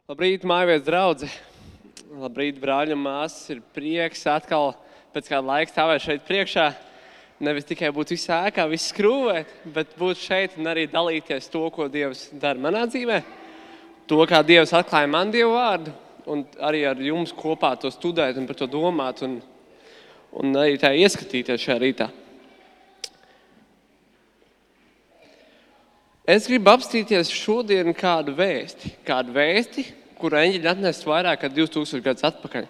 Labrīt, mājvies draudze. Labrīt, brāļi un māsas. Ir prieks atkal pēc kāda laika stāvēt šeit priekšā. Nevis tikai būt visā ēkā, viss skrūvēt, bet būt šeit un arī dalīties to, ko Dievs dara manā dzīvē. To, kā Dievs atklāja man Dievu vārdu. Un arī ar jums kopā to studēt un par to domāt. Un arī tā ieskatīties šajā rītā. Es gribu apstīties šodien kādu vēsti, kuru eņģeļi atnest vairāk kā 2000 gadus atpakaļ.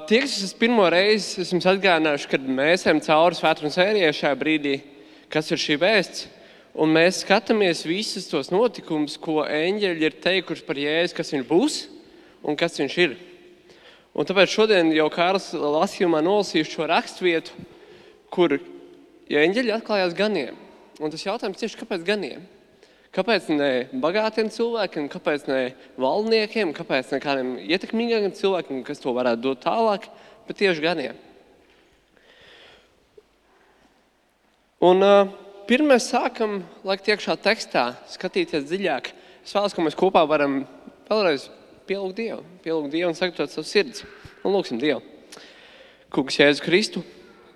Tie, kas es pirmo reizi esmu atgādinājuši, kad mēs ejam cauri svētdienas sērijai šajā brīdī, kas ir šī vēsts, un mēs skatāmies visus tos notikumus, ko eņģeļi ir teikuši par Jēzu, kas viņš būs un kas viņš ir. Un tāpēc šodien jau Kārlis lasījumā nolasīšu šo rakstvietu, kur eņģeļi atklājās ganiem. Un tas jautājums tieši, kāpēc ganiem? Kāpēc ne bagātiem cilvēkiem, kāpēc ne valdniekiem, kāpēc ne kādiem ietekmīgākiem cilvēkiem, kas to varētu dot tālāk, bet tieši ganiem? Un pirmais sākam, laikt iekšā tekstā, skatīties dziļāk. Es vēlos, ka mēs kopā varam vēlreiz pielūgt Dievu un sagatavot savu sirds. Un lūksim Dievu. Kungs Jēzu Kristu,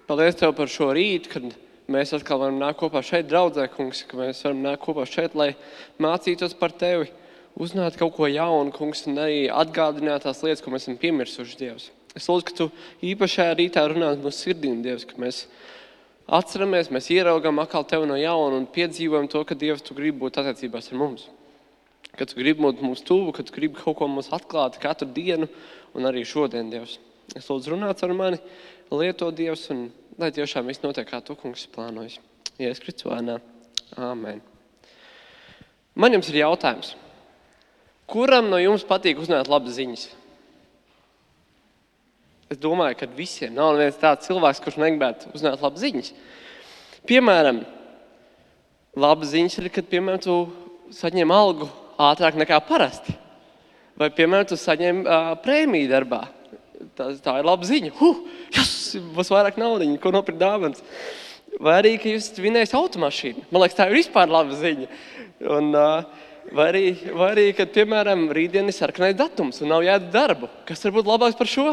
paldies Tev par šo rītu, kad mēs atkal varam nākt kopā šeit draudzē, kungs, ka mēs varam nākt kopā šeit, lai mācītos par Tevi, uzzināt kaut ko jaunu, kungs, un arī atgādināt tās lietas, ko mēs esam piemirsuši, Dievs. Es lūdzu, ka Tu īpašajā rītā runāt mūsu sirdīm, Dievs, ka mēs atceramies, mēs ieraugam atkal Tevi no jauna un piedzīvojam to, ka Dievs, Tu gribi būt attiecībās ar mums. Ka Tu gribi būt mums tuvu, ka Tu gribi kaut ko mums atklāt katru dienu un arī šodien, Dievs. Es lūdzu runāt ar mani, lieto Dievs un lai tiešām viss notiek, kā Tu, kungs, plānojas. Jēzus Kristus vārdā. Āmen. Man jums ir jautājums. Kuram no jums patīk uzzināt labas ziņas? Es domāju, ka visiem nav neviens tāds cilvēks, kurš negribētu uzzināt labas ziņas. Piemēram, labas ziņas ir, kad, piemēram, tu saņem algu ātrāk nekā parasti. Vai, piemēram, tu saņem prēmiju darbā. Tā ir laba ziņa. Būs vairāk naudiņu, ko nopirkt dāvans. Vai arī, ka jūs vinējat automašīnu. Man liekas, tā ir vispār laba ziņa. Un, vai arī, kad, piemēram, rītdien ir sarkanais datums un nav jāiet darbu. Kas var būt labāks par šo?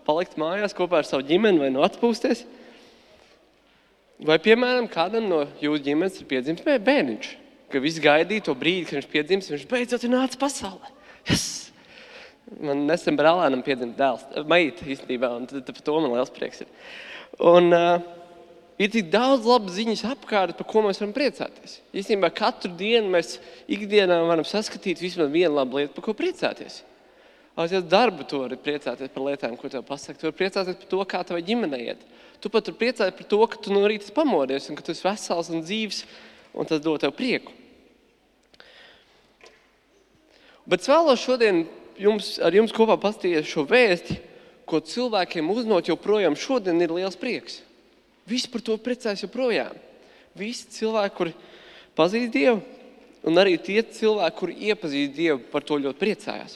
Palikt mājās kopā ar savu ģimeni vai atpūsties? Vai, piemēram, kādam no jūsu ģimenes ir piedzimis bērniņš, ka viss gaidīja to brīdi, kad viņš piedzimis, viņš beidzot ir nācis pasaulē. Yes! Man nesen brālēnam piedzima dēls, meita īstenībā, un par to man liels prieks ir. Un ir tik daudz labas ziņas apkārt, par ko mēs varam priecāties. Īstenībā katru dienu mēs ikdienā varam saskatīt vismaz vienu labu lietu, par ko priecāties. Aiziet darbu, tu vari priecāties par lietām, ko tev pasaka. Tu vari priecāties par to, kā tavai ģimenei iet. Tu pat vari priecāties par to, ka tu no rīta pamodies un ka tu esi vesels un dzīvs, un tas dod tev prieku. Bet es vēlos šodien ar jums kopā pastīties šo vēsti, ko cilvēkiem uznot joprojām šodien ir liels prieks. Visi par to priecājas joprojām. Visi cilvēki, kuri pazīst Dievu, un arī tie cilvēki, kuri iepazīst Dievu, par to ļoti priecājās.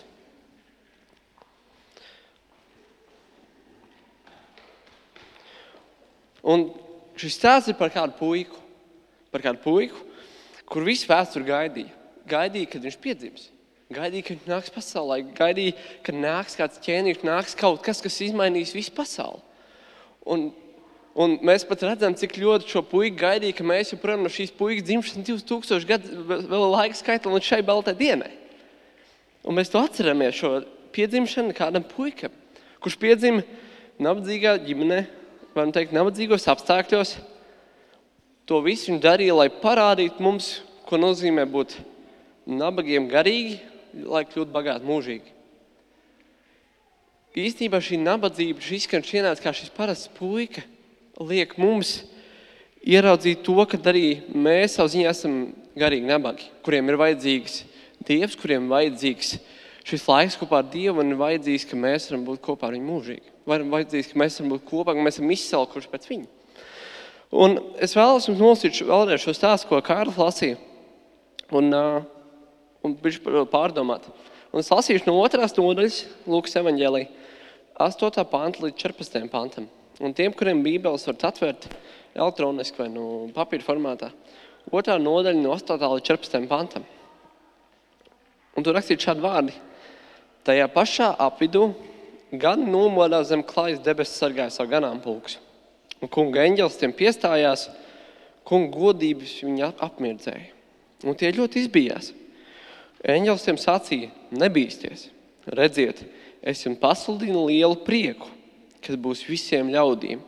Un šis stāsts ir par kādu puiku, kur visu vēsturi gaidīja, kad viņš piedzims. Gaidīja, ka viņš nāks pasaulē, gaidīja, ka nāks kāds ķēniņš, nāks kaut kas, kas izmainīs visu pasauli. Un mēs pat redzam, cik ļoti šo puiku gaidīja, ka mēs joprojām no šīs puikas dzimšanas 2000 gadu vēl laika skaitam līdz šai baltai dienai. Un mēs to atceramies, šo piedzimšanu kādam puikam, kurš piedzima nabadzīgā ģimenē, varam teikt, nabadzīgos apstākļos. To visu viņš darīja, lai parādītu mums, ko nozīmē būt nabagiem garīgi, lai kļūtu bagāti mūžīgi. Īstenībā šī nabadzība, šis izskan ienāca kā šis parasts puika, liek mums ieraudzīt to, ka arī mēs savu ziņā esam garīgi nabagi, kuriem ir vajadzīgs Dievs, kuriem ir vajadzīgs šis laiks kopā ar Dievu un ir vajadzīgs, ka mēs varam būt kopā ar viņu mūžīgi. Vajadzīgs, ka mēs varam būt kopā, ka mēs esam izsalkuši pēc viņa. Un es vēlos jums nolasīt vēlreiz šo stāstu, ko Kārlis lasīja. Un pārdomāt. Un es lasīšu no 2. nodaļas Lūkas evaņģēlī 8. panta līdz 14. pantam. Un tiem, kuriem bībeles varat atvērt elektroniski vai papīra formātā, 2. nodaļa no 8. līdz 14. pantam. Un tur rakstīt šādi vārdi. Tajā pašā apvidū gan nomodās zem klājas debesis sargāja savu ganāmpulkus. Un kunga eņģelis tiem piestājās, kunga godības viņi apmirdzēja. Un tie ļoti izbijās. Eņģelis tiem sacīja, nebīsties. Redziet, es jums pasludinu lielu prieku, kas būs visiem ļaudīm.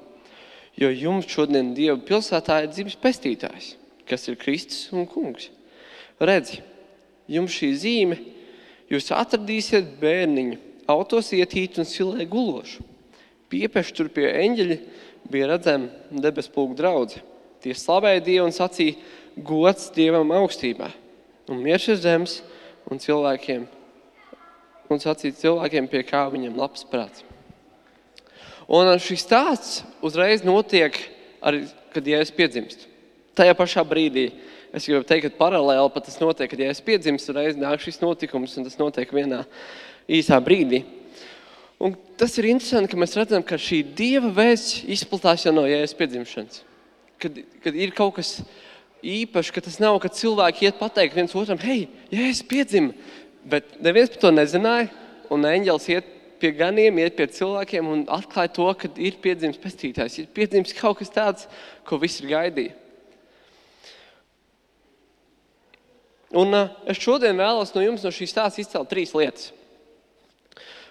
Jo jums šodien Dieva pilsētā ir dzimis pestītājs, kas ir Kristus un kungs. Redzi, jums šī zīme, jūs atradīsiet bērniņu, autos ietītu un silē gulošu. Piepeši tur pie eņģeļa bija redzama debespulku draudze. Tie slavēja Dievu un sacīja, gods Dievam augstībā. Un miers ir zemes un cilvēkiem, un sacīja cilvēkiem, pie kā viņam labs prāts. Un šis stāsts uzreiz notiek, arī, kad Jēzus piedzimst. Tajā pašā brīdī, es gribu teikt, ka paralēli pat tas notiek, kad Jēzus piedzimst, uzreiz nāk šis notikums, un tas notiek vienā īsā brīdī. Un tas ir interesanti, ka mēs redzam, ka šī Dieva vēsts izplatās jau no Jēzus piedzimšanas. Kad ir kaut kas īpaši, ka tas nav, kad cilvēki iet pateikt viens otram, hei, Jēzus piedzima, bet neviens par to nezināja, un eņģelis iet pie ganiem, iet pie cilvēkiem un atklāja to, ka ir piedzimis pestītājs, ir piedzimis kaut kas tāds, ko visi ir gaidīja. Un es šodien vēlos no jums no šīs stāsts izcelt 3 lietas.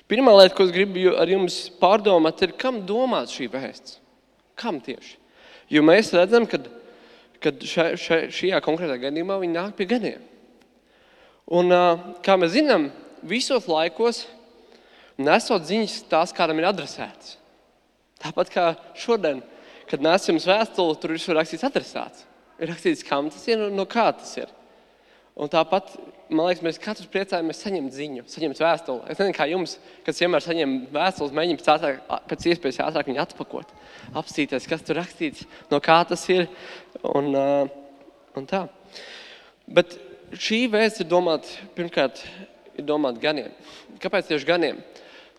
Pirmā lieta, ko es gribu ar jums pārdomāt, ir, kam domāts šī vēsts? Kam tieši? Jo mēs redzam, kad šajā konkrētā gadījumā viņi nāk pie ganiem. Un, kā mēs zinām, visos laikos nesot ziņas tās, kādam ir adresētas. Tāpat kā šodien, kad nes jums vēstuli, tur ir rakstīts adresāts. Ir rakstīts, kam tas ir un no kā tas ir. Un tāpat, man liekas, mēs katrs priecājamies saņemt ziņu, saņemt vēstuli. Es nezinu, kā jums, kad vienmēr saņem vēstules, mēģināt pēc iespējas ātrāk viņu atpakot, apstīties, kas tur rakstīts, no kā tas ir un tā. Bet šī vēsts ir domāta, pirmkārt, ir domāta ganiem. Kāpēc tieši ganiem?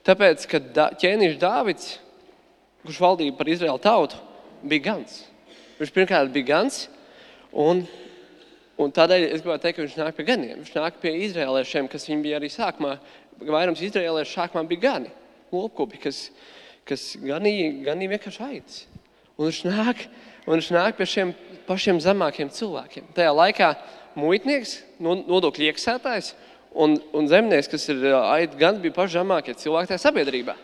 Tāpēc, ka ķēniņš Dāvids, kurš valdīja par Izraēlu tautu, bija gans. Viņš pirmkārt bija gans, un tādēļ es gribētu teikt, ka viņš nāk pie ganiem. Viņš nāk pie izraēliešiem, kas viņi bija arī sākumā. Vairums izraēliešu sākumā bija gani, lopkopi, kas ganīja vienkārši aitas. Un viņš nāk pie šiem pašiem zemākiem cilvēkiem. Tajā laikā muitnieks, nodokļu iekasētājs un zemnieks, kas ir aitu gani, bija paši zemākie cilvēki tajā sabiedrībā.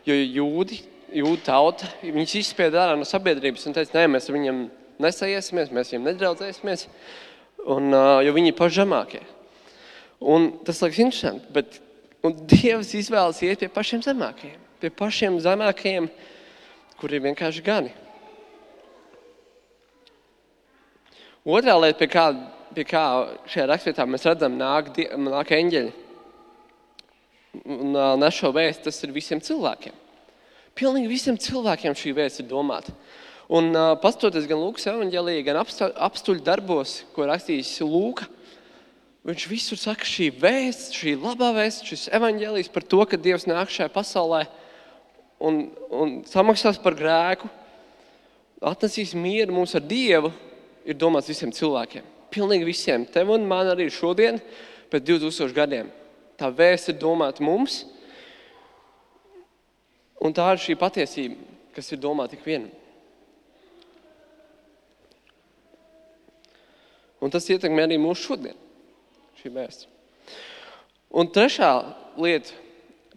Jo jūdu tauta, viņus izspieda ārā no sabiedrības un teica, nē, mēs ar viņiem nesaiesimies, mēs viņiem nedraudzēsimies. Jo viņi ir paši zemākie. Un tas liekas interesanti, un Dievs izvēlas iet pie pašiem zemākajiem. Pie pašiem zemākajiem, kuri ir vienkārši gani. Otrā lieta, pie kā šajā rakstvietā mēs redzam, nāk eņģeļi. Un nes šo vēstu, tas ir visiem cilvēkiem. Pilnīgi visiem cilvēkiem šī vēsts ir domāta. Un pastoties gan Lūkas evaņģēlijā, gan apstuļu darbos, ko rakstījis Lūka, viņš visur saka šī vēsts, šī labā vēsts, šis evaņģēlijs par to, ka Dievs nāk šajā pasaulē un samaksās par grēku, atnesīs mieru mums ar Dievu, ir domāts visiem cilvēkiem. Pilnīgi visiem. Tev un man arī šodien, pēc 2000 gadiem. Tā vēsts ir domāta mums, un tā ir šī patiesība, kas ir domāta ik vienam. Un tas ietekmē arī mūsu šodien, šī vēsts. Un trešā lieta,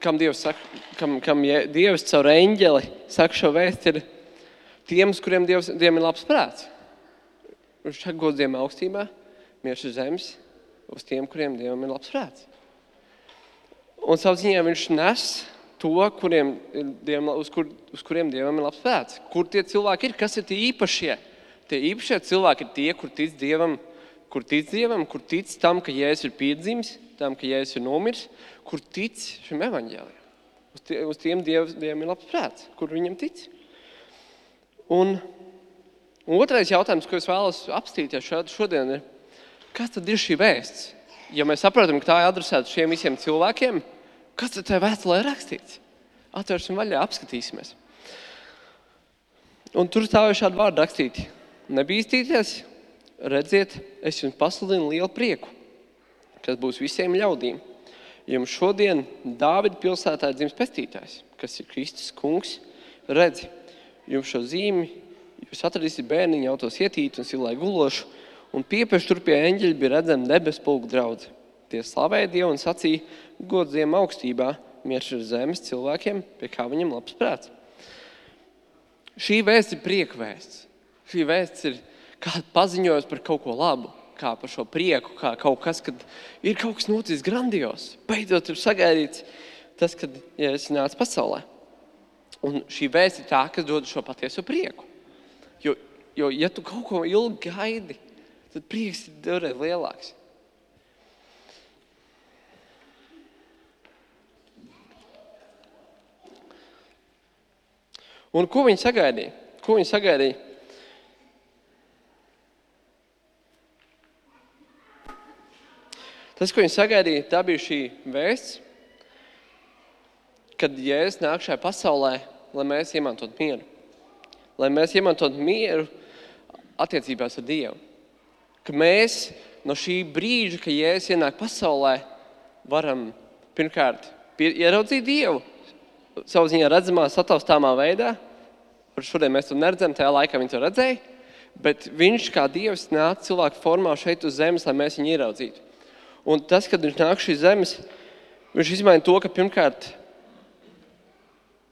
kam Dievs caur eņģeli saka šo vēstu, ir tiem, kuriem Dievam ir labs prāts. Viņš saka gods Dievam augstībā, miers uz zemes, uz tiem, kuriem Dievam ir labs prāts. Un savu ziņā viņš nes to, uz kuriem Dievam ir labs prāts. Kur tie cilvēki ir, kas ir tie īpašie? Tie īpašie cilvēki ir tie, kur tic Dievam, kur tic tam, ka Jēzus ir piedzimis, tam, ka Jēzus ir nomirs, kur tic šim evaņģēlijam. Uz tiem Dievam ir labs prāts, kur viņam tic. Un otrais jautājums, ko es vēlos apstīties šodien, ir, kas tad ir šī vēsts? Ja mēs saprotam, ka tā ir adresēta šiem visiem cilvēkiem, kas tad tajā vēstulē ir rakstīts? Atvērsim vaļā, apskatīsimies. Un tur stāv šādi vārdi rakstīti. Nebīstīties, redziet, es jums pasludinu lielu prieku, kas būs visiem ļaudīm. Jums šodien Dāvida pilsētā ir dzimis pestītājs, kas ir Kristus kungs. Redzi, jums šo zīmi, jūs atradīsiet bērniņu autos ietīt un silai gulošu, un piepieši tur pie eņģeļa bija redzama debesu pulka draudze. Tie slavēja Dievu un sacīja, gods Dievam augstībā, miers ir zemes cilvēkiem, pie kā viņam labs prāts. Šī vēsts ir prieka vēsts. Šī vēsts ir kāda paziņojums par kaut ko labu, kā par šo prieku, kā kaut kas, kad ir kaut kas noticis grandios. Beidzot ir sagaidīts tas, kad Jēzus nāca pasaulē. Un šī vēsts ir tā, kas dod šo patieso prieku. Jo ja tu kaut ko ilgi gaidi, tad prieks ir divreiz lielāks. Un ko viņi sagaidīja? Tas, ko viņi sagaidīja, tā bija šī vēsts, kad Jēzus nāk šajā pasaulē, lai mēs iemantot mieru. Lai mēs iemantot mieru attiecībās ar Dievu. Ka mēs no šī brīža, kad Jēzus ienāk pasaulē, varam pirmkārt ieraudzīt Dievu savu ziņā redzamā, sataustāmā veidā. Šodien mēs to neredzam, tajā laikā viņi to redzēja, bet viņš kā Dievs nāk cilvēku formā šeit uz zemes, lai mēs viņu ieraudzītu. Un tas, kad viņš nāk šīs zemes, viņš izmaina to, ka pirmkārt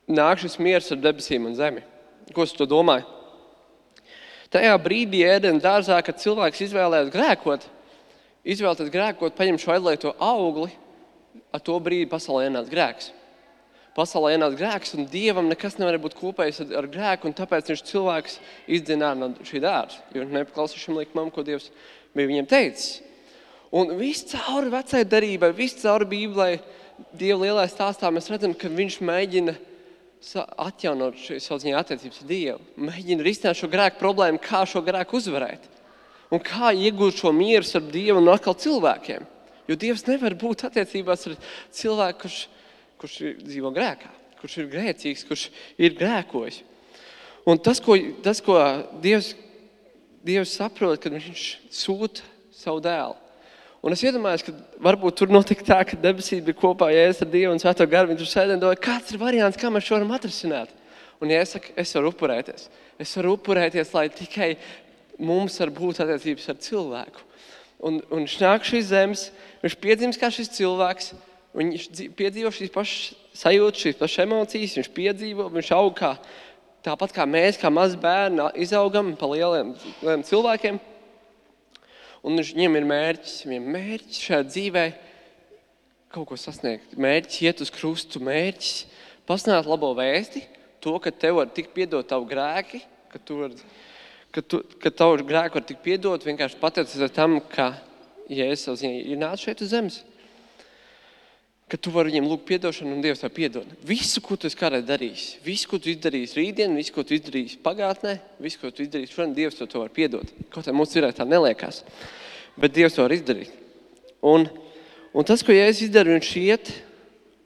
nāk šis miers ar debesīm un zemi. Ko es to domāju? Tajā brīdī Ēdena dārzā, kad cilvēks izvēlēties grēkot, paņem šo aizliegto augli, ar to brīdi pasaulē ienāca grēks. Pasaulē ienāca grēks, un Dievam nekas nevar būt kopējis ar grēku, un tāpēc viņš cilvēks izdzina no šī dārza, jo viņš nepaklausīja šim likumam, ko Dievs bija viņiem teicis. Un viss cauri vecai darībai, viss cauri Bībelē, Dieva lielajā stāstā mēs redzam, ka viņš mēģina atjaunot savu ziņā attiecības ar Dievu. Mēģina risināt šo grēku problēmu, kā šo grēku uzvarēt. Un kā iegūt šo mieru ar Dievu un atkal cilvēkiem. Jo Dievs nevar būt attiecībās ar cilvēku, kurš dzīvo grēkā, kurš ir grēcīgs, kurš ir grēkojis. Un tas, ko Dievs saprot, kad viņš sūta savu dēlu. Un es iedomājos, ka varbūt tur notika tā, ka debesīs bija kopā Jēzus ar Dievu un Svēto garu. Viņi tur sēdēja un domāja, kāds ir variants, kā mēs šo varam atrisināt. Un Jēzus saka, es varu upurēties. Es varu upurēties, lai tikai mums var būt attiecības ar cilvēku. Un viņš nāk šīs zemes, viņš piedzimst kā šis cilvēks, viņš piedzīvo šīs pašas sajūtas, šīs pašas emocijas, viņš piedzīvo, viņš aug kā, tāpat kā mēs, kā mazi bērni, izaugam pa lieliem cilvēkiem. Un viņiem ir mērķis šajā dzīvē kaut ko sasniegt. Mērķis iet uz krustu, mērķis pasludināt labo vēsti, to, ka tev var tikt piedot tavu grēki, ka tavu grēku var tikt piedot vienkārši pateicoties tam, ka Jēzus ir nācis šeit uz zemes. Ka tu vari viņiem lūgt piedošanu un Dievs tev piedod. Visu, ko tu esi kādreiz darījis, visu, ko tu izdarīsi rītdien, visu, ko tu izdarīsi pagātnē, visu, ko tu izdarīsi šodien, Dievs to var piedot. Kaut kā mums tā neliekās, bet Dievs to var izdarīt. Un tas, ko Jēzus izdara, viņš iet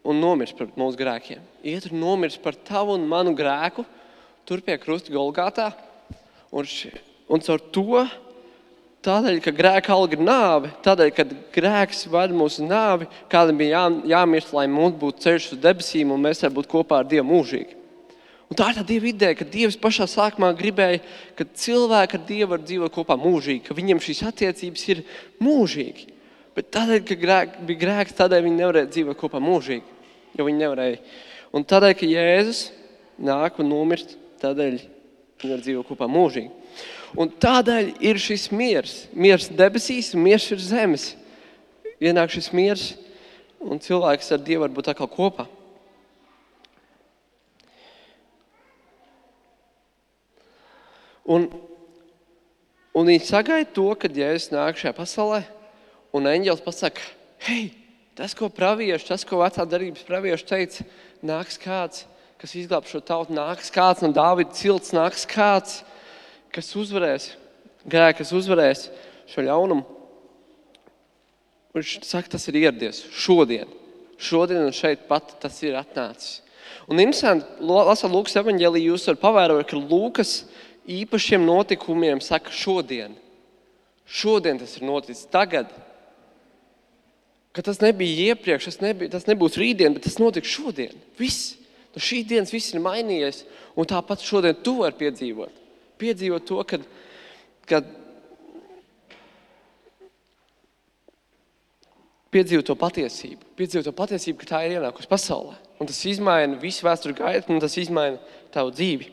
un nomirst par mūsu grēkiem. Iet un nomirst par tavu un manu grēku, tur pie krusta Golgātā. Un caur to, tādēļ, ka grēka alga ir nāve, tādēļ, ka grēks vada mūsu nāvi, kādam bija jāmirst, lai mums būtu ceļš uz debesīm un mēs varam būt kopā ar Dievu mūžīgi. Un tā ir tā Dieva ideja, ka Dievs pašā sākumā gribēja, ka cilvēki ar Dievu var dzīvot kopā mūžīgi, ka viņiem šīs attiecības ir mūžīgi. Bet tādēļ, ka bija grēks, tādēļ viņi nevarēja dzīvot kopā mūžīgi, jo viņi nevarēja. Un tādēļ, ka Jēzus nāk un nomirst, tādēļ viņi var dzīvot kopā mūžīgi. Un tādēļ ir šis miers debesīs un miers ir zemes. Ienāk šis miers un cilvēks ar Dievu var būt atkal kopā. Un viņi sagaida to, kad Jēzus nāk šajā pasaulē un eņģelis pasaka, hei, tas, ko vecā darības pravieši teica, nāks kāds, kas izglāb šo tautu, nāks kāds no Dāvida cilts, nāks kāds, kas uzvarēs grēku, kas uzvarēs šo ļaunumu. Viņš saka, tas ir ieradies šodien un šeit pat tas ir atnācis. Un interesanti, lasot Lūkas evaņģēliju, jūs varat pavērot, ka Lūkas īpašiem notikumiem saka šodien. Šodien tas ir noticis, tagad. ka tas nebija iepriekš, tas nebūs rītdien, bet tas notiks šodien. Viss. No šī dienas viss ir mainījies, un tāpat šodien tu vari piedzīvot. Piedzīvot to, kad piedzīvot to patiesību, ka tā ir ienākusi pasaulē. Un tas izmaina visu vēsturi gaitu, un tas izmaina tavu dzīvi.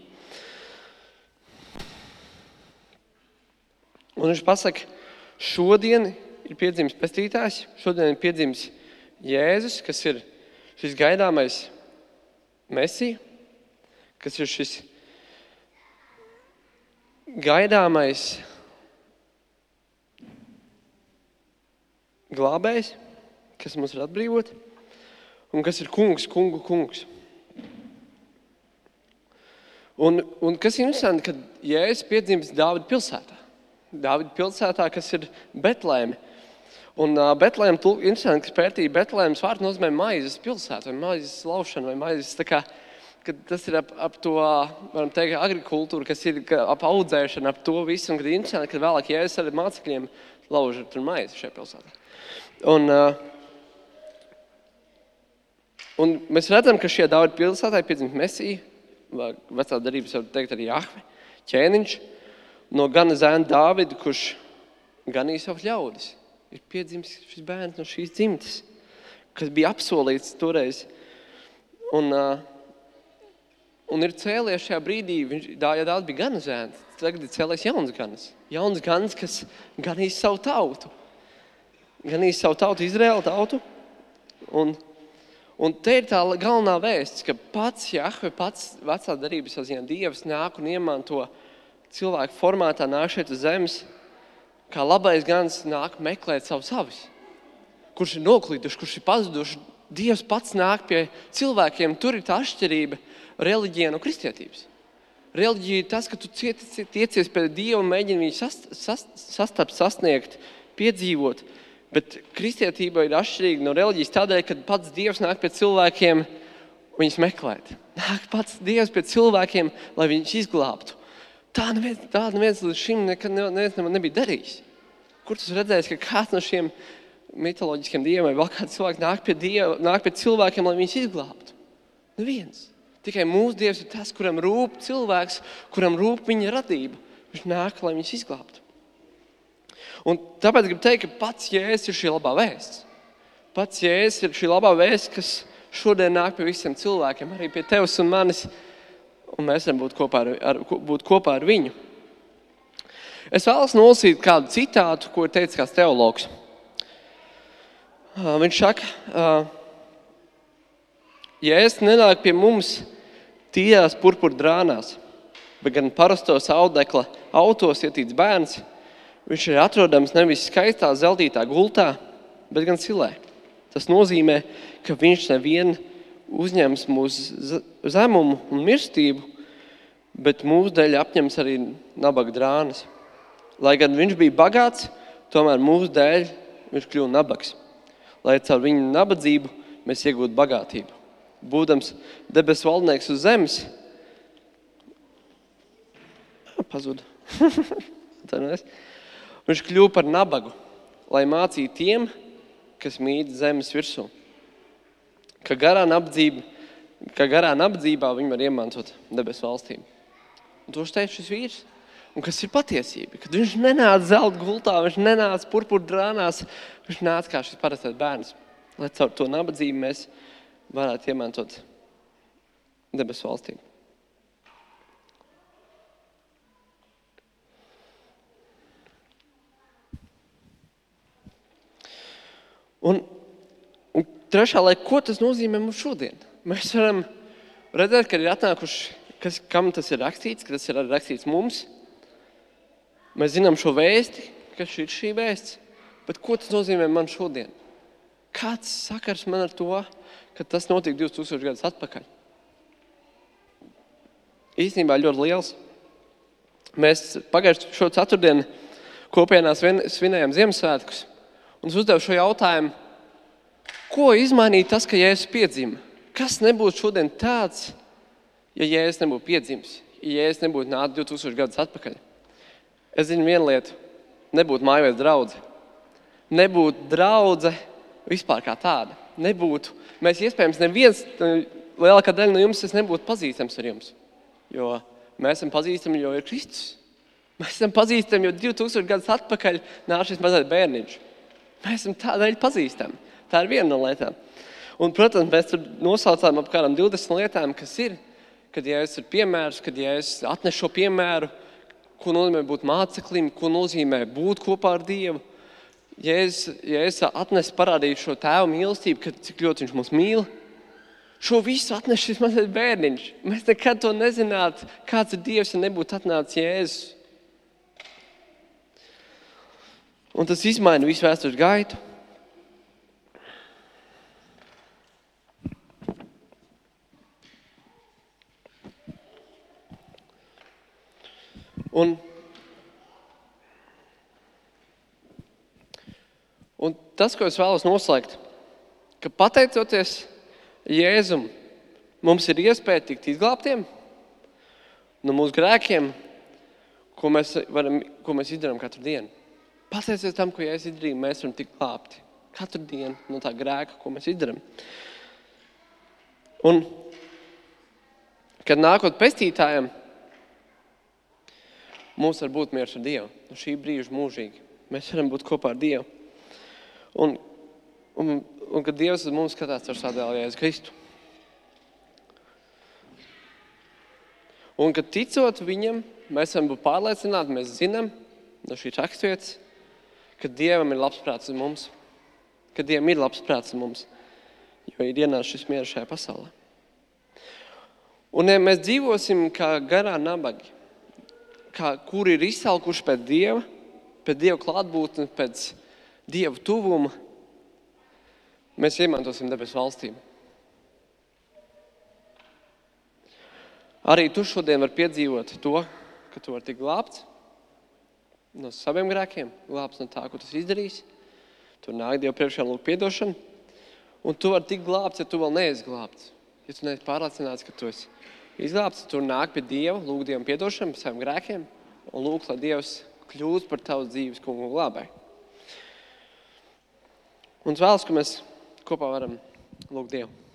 Un viņš pasaka, šodien ir piedzimis pestītājs, šodien ir piedzimis Jēzus, kas ir šis gaidāmais Mesija, kas ir šis gaidāmais glābējs, kas mums var atbrīvot, un kas ir kungu kungs. Un kas ir interesanti, kad Jēzus piedzimis Dāvida pilsētā. Dāvida pilsētā, kas ir Betlēme. Un Betlēma, interesanti, kas pētīja Betlēmas vārdu nozīmē maizes pilsētu, vai maizes laušana, vai maizes, tā kā, kad tas ir ap to, varam teikt, agrikultūru, kas ir ap audzēšanu, ap to visu, un kad interesanti, kad vēlāk Jēzus ar mācekļiem lauž tur maizi šajā pilsētā. Un mēs redzam, ka šajā Dāvida pilsētā ir piedzimis Mesija, vecā darības var teikt arī Jahve, ķēniņš, no gana zēna Dāvida, kurš ganīja savus ļaudis. Ir piedzimis šis bērns no šīs dzimtes, kas bija apsolīts toreiz. Un ir cēlies šajā brīdī, Dāvida bija gana zēns, tagad ir cēlies jauns ganas. Jauns ganas, kas ganīs savu tautu. Ganīs savu tautu, Izraēlu tautu. Un te ir tā galvenā vēsts, ka pats Jahve, pats vecā darības ziņā Dievs nāk un iemanto cilvēku formātā, nāk šeit uz zemes, kā labais gans nāk meklēt savus avis, kurš ir noklīduši, kurš ir pazuduši. Dievs pats nāk pie cilvēkiem. Tur ir tā atšķirība reliģija no kristietības. Reliģija ir tas, ka tu tiecies pie Dieva un mēģini viņu sasniegt, piedzīvot. Bet kristietība ir atšķirīga no reliģijas tādēļ, kad pats Dievs nāk pie cilvēkiem viņus meklēt. Nāk pats Dievs pie cilvēkiem, lai viņus izglābtu. Tā neviens līdz šim nekad nebija darījis. Kur tu redzēsi, ka kāds no šiem mitoloģiskiem dieviem vai vēl kāds cilvēks nāk pie cilvēkiem, lai viņus izglābtu? Neviens. Tikai mūsu Dievs ir tas, kuram rūp cilvēks, kuram rūp viņa radība. Viņš nāk, lai viņus izglābtu. Un tāpēc gribu teikt, ka pats Jēzus ir šī labā vēsts. Pats Jēzus ir šī labā vēsts, kas šodien nāk pie visiem cilvēkiem, arī pie tevis un manis. Un mēs varam būt kopā ar viņu. Es vēlos nolasīt kādu citātu, ko ir teicis kāds teologs. Viņš saka, Jēzus nenāk pie mums tīrās purpura drānās, bet gan parastos audekla autos ietīts bērns. Viņš ir atrodams nevis skaistā zeltītā gultā, bet gan silē. Tas nozīmē, ka viņš nevien uzņems mūsu zemumu un mirstību, bet mūsu dēļ apņems arī nabaga drānas. Lai gan viņš bija bagāts, tomēr mūsu dēļ viņš kļuva nabags. Lai caur viņu nabadzību mēs iegūtu bagātību. Būdams debesu valdnieks uz zemes, pazuda. Viņš kļuva par nabagu, lai mācītu tiem, kas mīt zemes virsū. Ka garā nabadzībā viņi var iemantot debesu valstību. Un to teica šis vīrs. Un kas ir patiesība? Kad viņš nenāca zelta gultā, viņš nenāca purpura drānās, viņš nāca kā šis parastais bērns. Lai caur to nabadzību mēs varētu iemantot debesu valstību. Un trešā, lai ko tas nozīmē mums šodien? Mēs varam redzēt, ka ir atnākuši, kam tas ir rakstīts, ka tas ir rakstīts mums. Mēs zinām šo vēsti, kas ir šī vēsts, bet ko tas nozīmē man šodien? Kāds sakars man ar to, ka tas notika 2000 gadus atpakaļ? Īstenībā ļoti liels. Mēs pagājušo šo ceturtdienu kopienās svinējām Ziemassvētkus un uzdevu šo jautājumu, ko izmainīja tas, ka Jēzus piedzima? Kas nebūtu šodien tāds, ja Jēzus nebūtu piedzimis, ja Jēzus nebūtu nācis 2000 gadus atpakaļ? Es zinu vienu lietu, nebūtu mājvietas draudze. Nebūtu draudze vispār kā tāda nebūtu. Mēs iespējams neviens, lielākā daļa no jums, es nebūtu pazīstams ar jums. Jo mēs esam pazīstami, jo ir Kristus. Mēs esam pazīstami, jo 2000 gadus atpakaļ nāca šis mazais bērniņš. Mēs esam tādēļ pazīstami. Tā ir viena no lietām. Un, protams, mēs tur nosaucām ap kādām 20 lietām, kas ir, kad Jēzus ir piemērs, kad Jēzus atnes šo piemēru, ko nozīmē būt māceklim, ko nozīmē būt kopā ar Dievu. Jēzus atnes parādīt šo tēvu mīlestību, kad cik ļoti viņš mūs mīl. Šo visu atnes šis mazais bērniņš. Mēs nekad to nezinātu, kāds ir Dievs, ja nebūtu atnācis Jēzus. Un tas izmaina visu vēstures gaitu. Un tas, ko es vēlos noslēgt, ka pateicoties Jēzum, mums ir iespēja tikt izglābtiem no mūsu grēkiem, ko mēs izdarām katru dienu. Pateicoties tam, ko Jēzus izdarīja, mēs varam tikt glābti katru dienu no tā grēka, ko mēs izdarām. Un, kad nākot pestītājiem, mums var būt miers ar Dievu. No šī brīža mūžīgi. Mēs varam būt kopā ar Dievu. Un kad Dievs uz mums skatās ar savu dēlu Jēzu Kristu. Un kad ticot viņam, mēs varam būt pārliecināti, mēs zinām no šī raksturvietas, ka Dievam ir labs prāts uz mums. Ka Dievam ir labs prāts uz mums, jo ir ienācis šis miers šajā pasaulē. Un ja mēs dzīvosim kā garā nabagi, kuri ir izsalkuši pēc Dieva klātbūtnes, pēc Dieva tuvuma, mēs iemantosim debesu valstību. Arī tu šodien var piedzīvot to, ka tu vari tikt glābts no saviem grēkiem, glābts no tā, ko tu izdarīsi. Tur nāk Dievu priekšā lūgt piedošanu. Un tu vari tikt glābts, ja tu vēl neesi glābts. Ja tu neesi pārliecināts, ka tu esi izglābts, tur nāk pie Dieva, lūgt Dievam piedošanu par saviem grēkiem un lūgt, lai Dievs kļūst par tavas dzīves kungu un glābēju. Un es vēlos, ka mēs kopā varam lūgt Dievu.